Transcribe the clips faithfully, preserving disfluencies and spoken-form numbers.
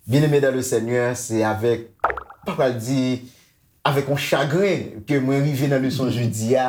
Bien-aimé dans le Seigneur, se avèk, pa pral di, avèk yon chagren ke mwen rive nan leson jodi a.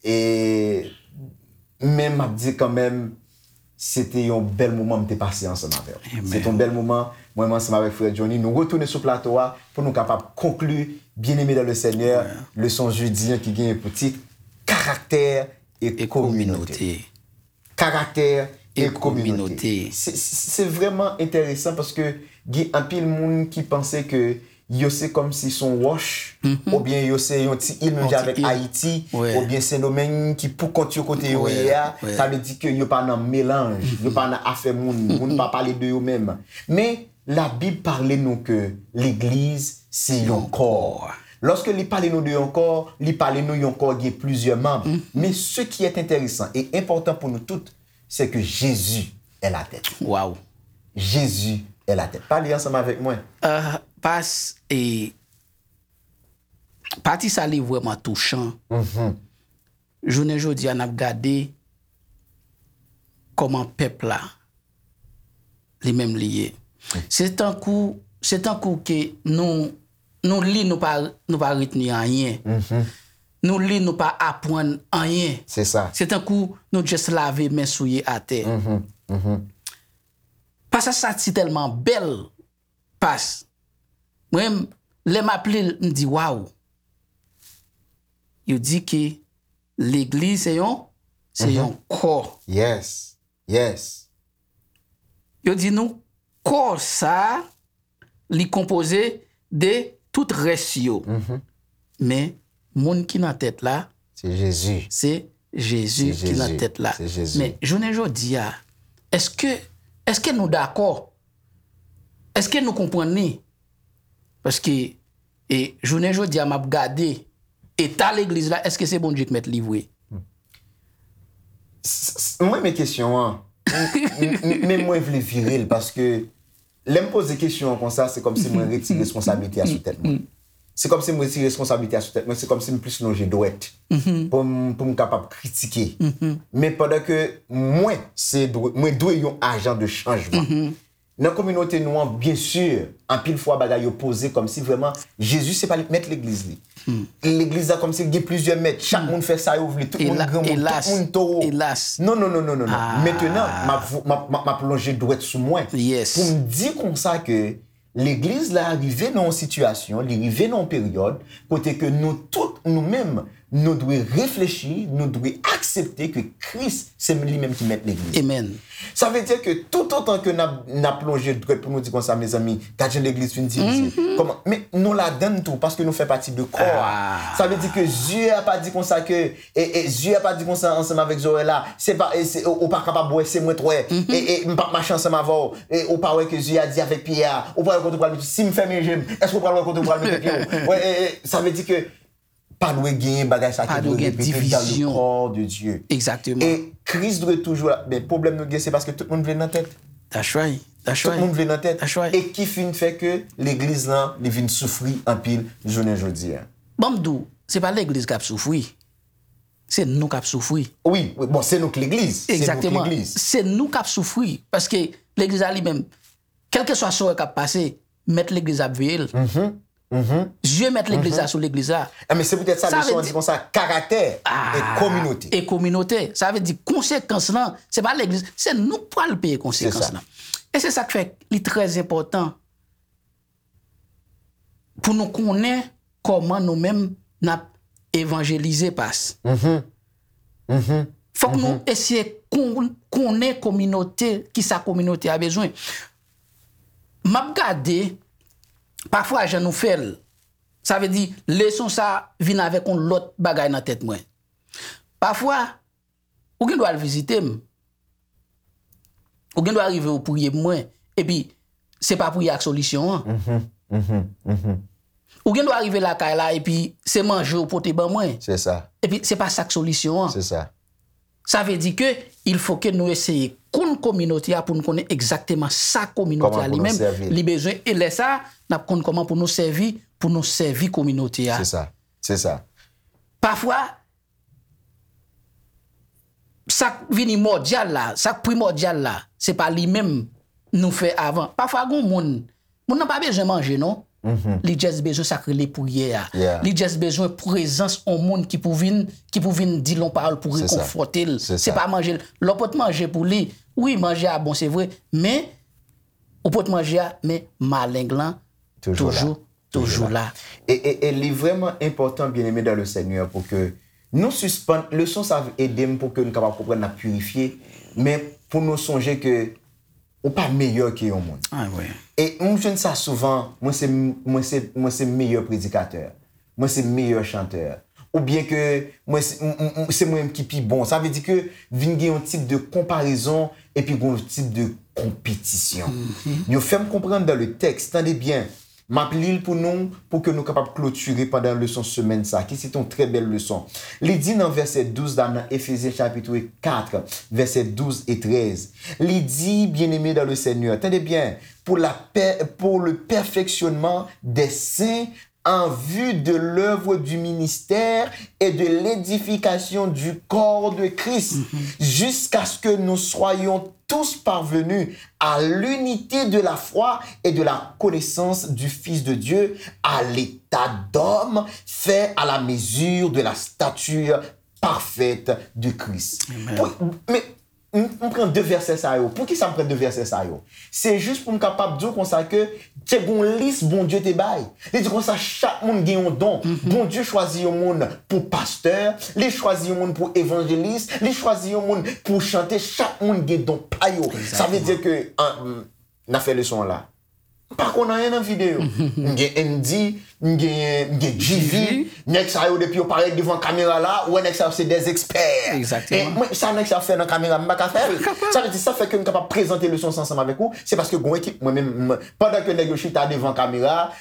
E men m ap di kanmenm, se te yon bèl moman m te pase ansanm avè w. Se te yon bèl moman, mwen menm ansanm avèk frè Johnny, nou retounen sou plato a pou nou kapab konkli Bien-aimé dans le Seigneur, leson jodi an ki genyen pou tit Karaktè e kominote. Karaktè e kominote. Se, se, se vrèman enteresan paske gen anpil moun ki panse ke yo se kòmsi se yon wòch, oubyen yo se yon ti il menm jan avèk Ayiti, oubyen Sendomeng ki pou kont yo kote yo ye a, sa vle di ke yo pa nan melanj, yo pa nan afè moun, moun pa pale de yo menm. Men, Labib pale nou ke legliz se yon kò. Lòske li pale nou de yon kò, li pale nou yon kò gen plizyè manm. Men ce qui est intéressant et important pour nous toutes, c'est que Jésus est la tête. Waw. Jésus est la tête. Pale ansanm avèk mwen. Ah, pas, e, pati sa li vrèman touchan. Jounen jodi a, n ap gade kòman pèp la, li menm li ye. Se tankou, se tankou ke nou, nou li, nou pa, nou pa retni anyen. Nou li, nou pa aprann anyen. Se sa. Se tankou nou just lave men souye atè. Pasaj sa si tèlman bèl, pas. Mwen, lè m ap li l, m di, waw. Yo di ke legliz se yon, se yon kò. Yes. Yes. Yo di nou, kò sa, li konpoze de tout rès yo. Men, moun ki nan tèt la, se Jezi. Se Jezi ki nan tèt la. Se Jezi. Men, jounen jodi a, èske, èske nou dakò? Èske nou konprann li? Paske, e, jounen jodi a, m ap gade eta legliz la, èske se Bondye k mèt li vre? S-, s-, mwen renmen kesyon an. M, m, m, men mwen vle vire l paske lè m poze kesyon an konsa, se kòmsi mwen retire responsablite a sou tèt mwen. Se kòmsi mwen retire responsablite a sou tèt mwen, se kòmsi m plis lonje dwèt pou m, pou m kapab kritike. Men pandan ke mwen, se dwe, mwen dwe yon ajan de chanjman. Nan kominote nou an, byen si, anpil fwa bagay yo poze kòmsi vrèman Jezi se pa li k mèt legliz li. Legliz la kòmsi gen plizyè mèt, chak moun fè sa yo vle, tout moun granmoun, tout moun towo. Non, non, non, non, non, non. Mentenan, m ap vo-, m ap, m ap, m ap lonje dwèt sou mwen pou m di konsa ke legliz la rive nan yon sitiyasyon, li rive nan yon peryòd kote ke nou tout, nou menm, nou dwe reflechi, nou dwe aksepte ke Kris se li menm ki mèt legliz. Amen. Sa vle di ke toutotan ke n ap, n ap lonje dwèt pou nou di konsa, mezanmi, gad jan legliz fin divize. Kòman? Men nou ladann tou, paske nou fè pati de kò a. Sa vle di ke zye a pa di konsa ke, e, e, zye a pa di konsa ansanm avèk zòrèy la, se pa, e, se, ou, ou pa kapab wè, se mwen t wè, e, e, m p ap mache ansanm avè w, e, ou pa wè ke zye a di avèk pye a, ou pa wè kote w pral mete, si m fèmen je m, èske w pral wè kote w pral mete pye w? Wè, e, e, sa vle di ke pa dwe genyen bagay sa ki dwe repete dans le corps de Dieu. Exactement. E Kris dwe toujou la. Men pwoblèm nou gen, se paske tout moun vle nan tèt. That's right. That's right. Tout moun vle nan tèt. That's right. E ki fin fè ke legliz lan, li vin soufri anpil jounen jodi a. Ban m di w, se pa legliz k ap soufri. Se nou k ap soufri. Wi, wi, bon, se nou k legliz. Se nou k legliz. Exactement. Se nou k ap soufri. Paske legliz la li menm, kèlkeswa sa w wè k ap pase, mèt legliz ap veye l. Zye mèt legliz la sou legliz la. E men se poutèt sa leson an di konsa, karaktè e kominote. E kominote. Sa vle di konsekans lan, se pa legliz, se nou k pral peye konsekans lan. E se sa k fè li trè enpòtan pou nou konnen kòman nou menm n ap evanjelize, pas. Fòk nou eseye kon-, konnen kominote, kisa kominote a bezwen. M ap gade, pafwa jan nou fè l, sa vle di, leson sa vin avèk yon lòt bagay nan tèt mwen. Pafwa, ou gen dwa al vizite m. Ou gen dwa rive ou priye pou mwen, epi se pa priyè a k solisyon an. Ou gen dwa rive lakay la, epi se manje ou pote ban mwen. Se sa. Epi se pa sa k solisyon an. Se sa. Sa vle di ke il faut que nou eseye konn kominote a pou nou konnen egzakteman sa kominote a li menm li bezwen. E lè sa a, n ap konn kòman pou nou sèvi, pou nou sèvi kominote a. Se sa. Se sa. Pafwa, sa k vini mòdyal la, sa k primòdyal la, se pa li menm nou fè avan. Pafwa, gen moun, moun nan pa bezwen manje, non. Li just bezwen sa k rele priyè a. Li just bezwen prezans yon moun ki pou vin, ki pou vin di l yon pawòl pou rekonfòte l. Se pa manje l. Lè w pot manje pou li, wi, manje a bon, se vre, men ou pot manje a, men maleng lan toujou, toujou la. E, e, e li vrèman enpòtan, byeneme dan le Senyè, pou ke nou sispann, leson sa ede m pou ke nou kapab konprann n ap pirifye, men pou nou sonje ke ou pa meyè ke yon moun. E m jwenn sa souvan, mwen se, mwen se, mwen se meyè predikatè, mwen se meyè chantè, oubyen ke mwen se, m- m- m- se mwen menm ki pi bon. Sa vle di ke vin gen yon tip de konparezon epi gen yon tip de konpetisyon. Yo fè m konprann dan le tèks, tande byen, m ap li l pou nou, pou ke nou kapab klotire pandan leson semèn sa, ki se te yon trè bèl leson. Li di nan vèsè douz la, nan Efezyen chapit kat, vèsè douz e trèz, li di, byeneme dan le Senyè, tande byen, pour la paix, pour le perfectionnement des saints en vue de l'œuvre du ministère et de l'édification du corps de Christ, jusqu'à ce que nous soyons tous parvenus à l'unité de la foi et de la connaissance du Fils de Dieu, à l'état d'homme fait à la mesure de la stature parfaite de Christ. Pou- men M, m pran de vèsè sa yo. Poukisa m pran de vèsè sa yo? Se jis pou m kapab di w konsa ke te gon lis Bondye te bay. Li di konsa chak moun gen yon don. Bondye chwazi yon moun pou pastè, li chwazi yon moun pou evanjelis, li chwazi yon moun pou chante. Chak moun gen don pa yo. Sa vle di ke, an, m, n ap fè leson an la. M pa konn anyen nan videyo. M gen Andy, m gen, m gen G V, nèg sa yo depi yo parèt devan kamera la, ou wè nèg sa yo se des experts. E mwen, sa nèg sa yo fè nan kamera, m pa ka fè l. Sa vle di, sa fè ke m kapab prezante leson sa ansanm avèk ou, se paske gon ekip, mwen menm, m- pandan ke nèg yo chita devan kamera,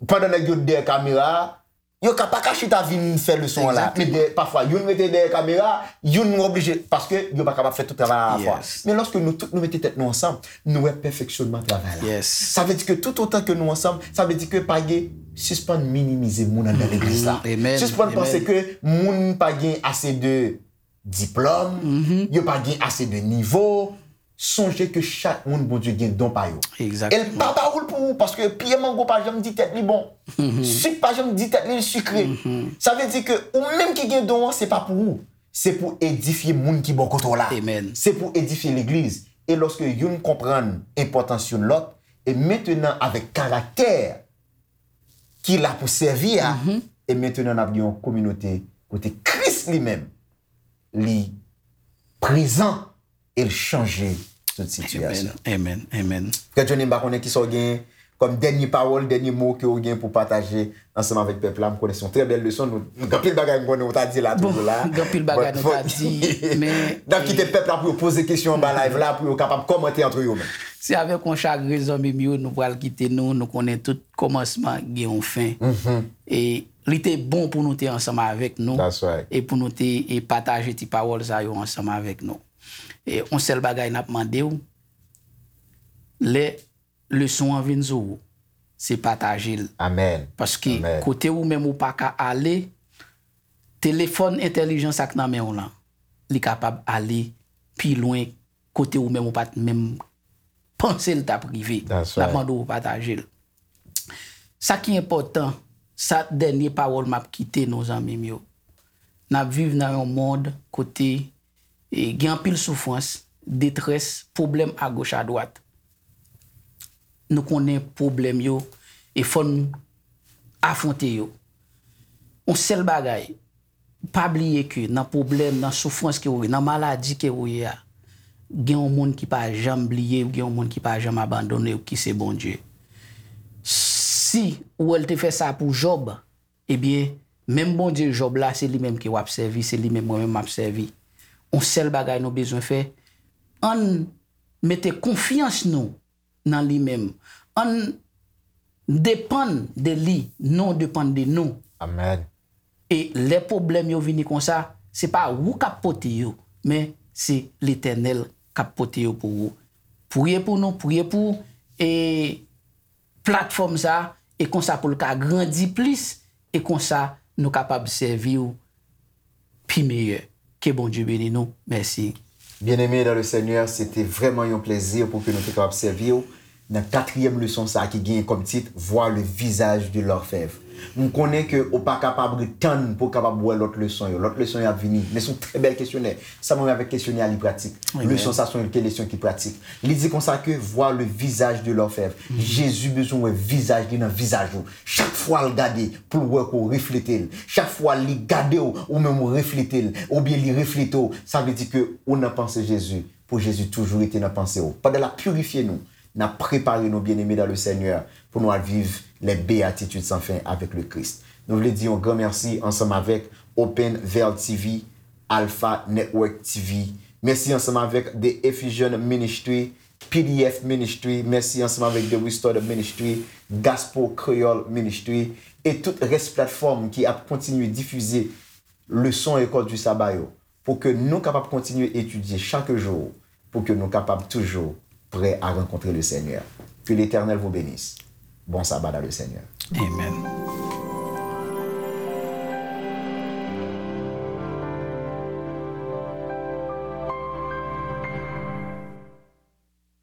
pandan nèg yo dèyè kamera, yo ka pa ka chita vin fè leson an la. Men dèyè, pafwa, youn rete dèyè kamera, youn oblije, paske yo pa kapab fè tout travay alavwa. Men lòske nou tout nou mete tèt nou ansanm, nou wè pèfeksyonman travay la. Sa vle di ke toutotan ke nou ansanm, sa vle di ke pa gen, sispann minimize moun anndan legliz la. Sispann panse ke moun pa gen ase de diplòm, yo pa gen ase de nivo. Sonje ke chak moun Bondye gen don pa yo. E l pa ba ou l pou ou, paske pye mango pa janm di tèt li bon. Sik pa janm di tèt li l sikre. Sa vle di ke ou menm ki gen don an, se pa pou ou. Se pou edifye moun ki bò kote w la. Se pou edifye legliz. E lòske youn konprann enpòtans youn lòt, e mentenan avèk karaktè ki la pou sèvi a, e mentenan n ap gen yon kominote kote Kris li menm, li prezan e l chanje tout sitiyasyon. Amen, amen, amen. Frè Johnny, m pa konnen kisa w gen kòm dènye pawòl, dènye mo ke w gen pou pataje ansanm avèk pèp la. M konnen se yon trè bèl leson. Nou, nou gen anpil bagay m konnen w ta di la toujou la. Bon, gen anpil bagay nou ta di, men n ap kite pèp la pou yo poze kesyon anba live la, pou yo kapab kòmante antre yo menm. Se avèk yon chagren, zanmi m yo, nou pral kite nou. Nou konnen tout kòmansman gen yon fen. E li te bon pou nou te ansanm avèk nou e pou nou te e pataje ti pawòl sa yo ansanm avèk nou. E yon sèl bagay n ap mande w, lè leson an vin sou ou, se pataje l. Paske kote ou menm ou pa ka ale, telefòn entèlijan sa k nan men w lan, li kapab ale pi lwen kote ou menm ou pa t menm panse l t ap rive. N ap mande w pataje l. Sa ki enpòtan, sa dènye pawòl m ap kite nou, zanmi m yo. N ap viv nan yon mond kote e, gen anpil soufrans, detrès, pwoblèm agoch adwat. Nou konnen pwoblèm yo e fò n afwonte yo. Yon sèl bagay, pa bliye ke nan pwoblèm, nan soufrans ke ou ye, nan maladi ke ou ye a, gen yon moun ki pa janm bliye w, gen yon moun ki pa janm abandone w, ki se Bondye. Si ou wè l te fè sa pou Jòb, ebyen, menm Bondye Jòb la, se li menm ke w ap sèvi, se li menm mwen menm m ap sèvi. Yon sèl bagay nou bezwen fè, ann mete konfyans nou nan li menm. Ann depann de li, non depann de nou. E lè pwoblèm yo vini konsa, se pa ou k ap pote yo, men se Letènèl k ap pote yo pou ou. Priye pou nou, priye pou, e, platfòm sa, e konsa pou l ka grandi plis, e konsa nou kapab sèvi w pi meyè. Ke Bondye beni nou. Mèsi. Bien-aimé dans le Seigneur, se te vrèman yon plezi pou ke nou te kapab sèvi w nan katriyèm leson sa a ki genyen kòm tit Voir le visage de l'orfèvre. M konnen ke ou pa kapab ret tann pou w kapab wè lòt leson yo. Lòt leson yo ap vini. Men se yon trè bèl kesyonè. Sa m renmen avèk kesyonè a, li pratik. Leson sa se yon leson ki pratik. Li di konsa ke voir le visage de l'orfèvre. Jezi bezwen wè vizaj li nan vizaj ou. Chak fwa l gade pou l wè ke w reflete l. Chak fwa li gade w, ou menm ou reflete l. Oubyen li reflete w. Sa vle di ke ou nan panse Jezi. Pou Jezi toujou rete nan panse w. Pandan l ap pirifye nou, n ap prepare nou, bien-aimé dans le Seigneur, pou nou al viv les béatitudes sans fin avec le Christ. Nou vle di yon gran mèsi ansanm avèk Open Veil T V, Alpha Network T V. Mèsi ansanm avèk The Ephesian Ministry, P D F Ministry. Mèsi ansanm avèk The Restored Ministry, Gospel Creole Ministry, e tout rès platfòm ki ap kontinye difize leson École du Sabbat yo, pou ke nou kapab kontinye etidye chak jou, pou ke nou kapab toujou prè a rankontre le Seigneur. Que l'Éternel vous bénisse. Bon sabbat dans le Seigneur. Amen.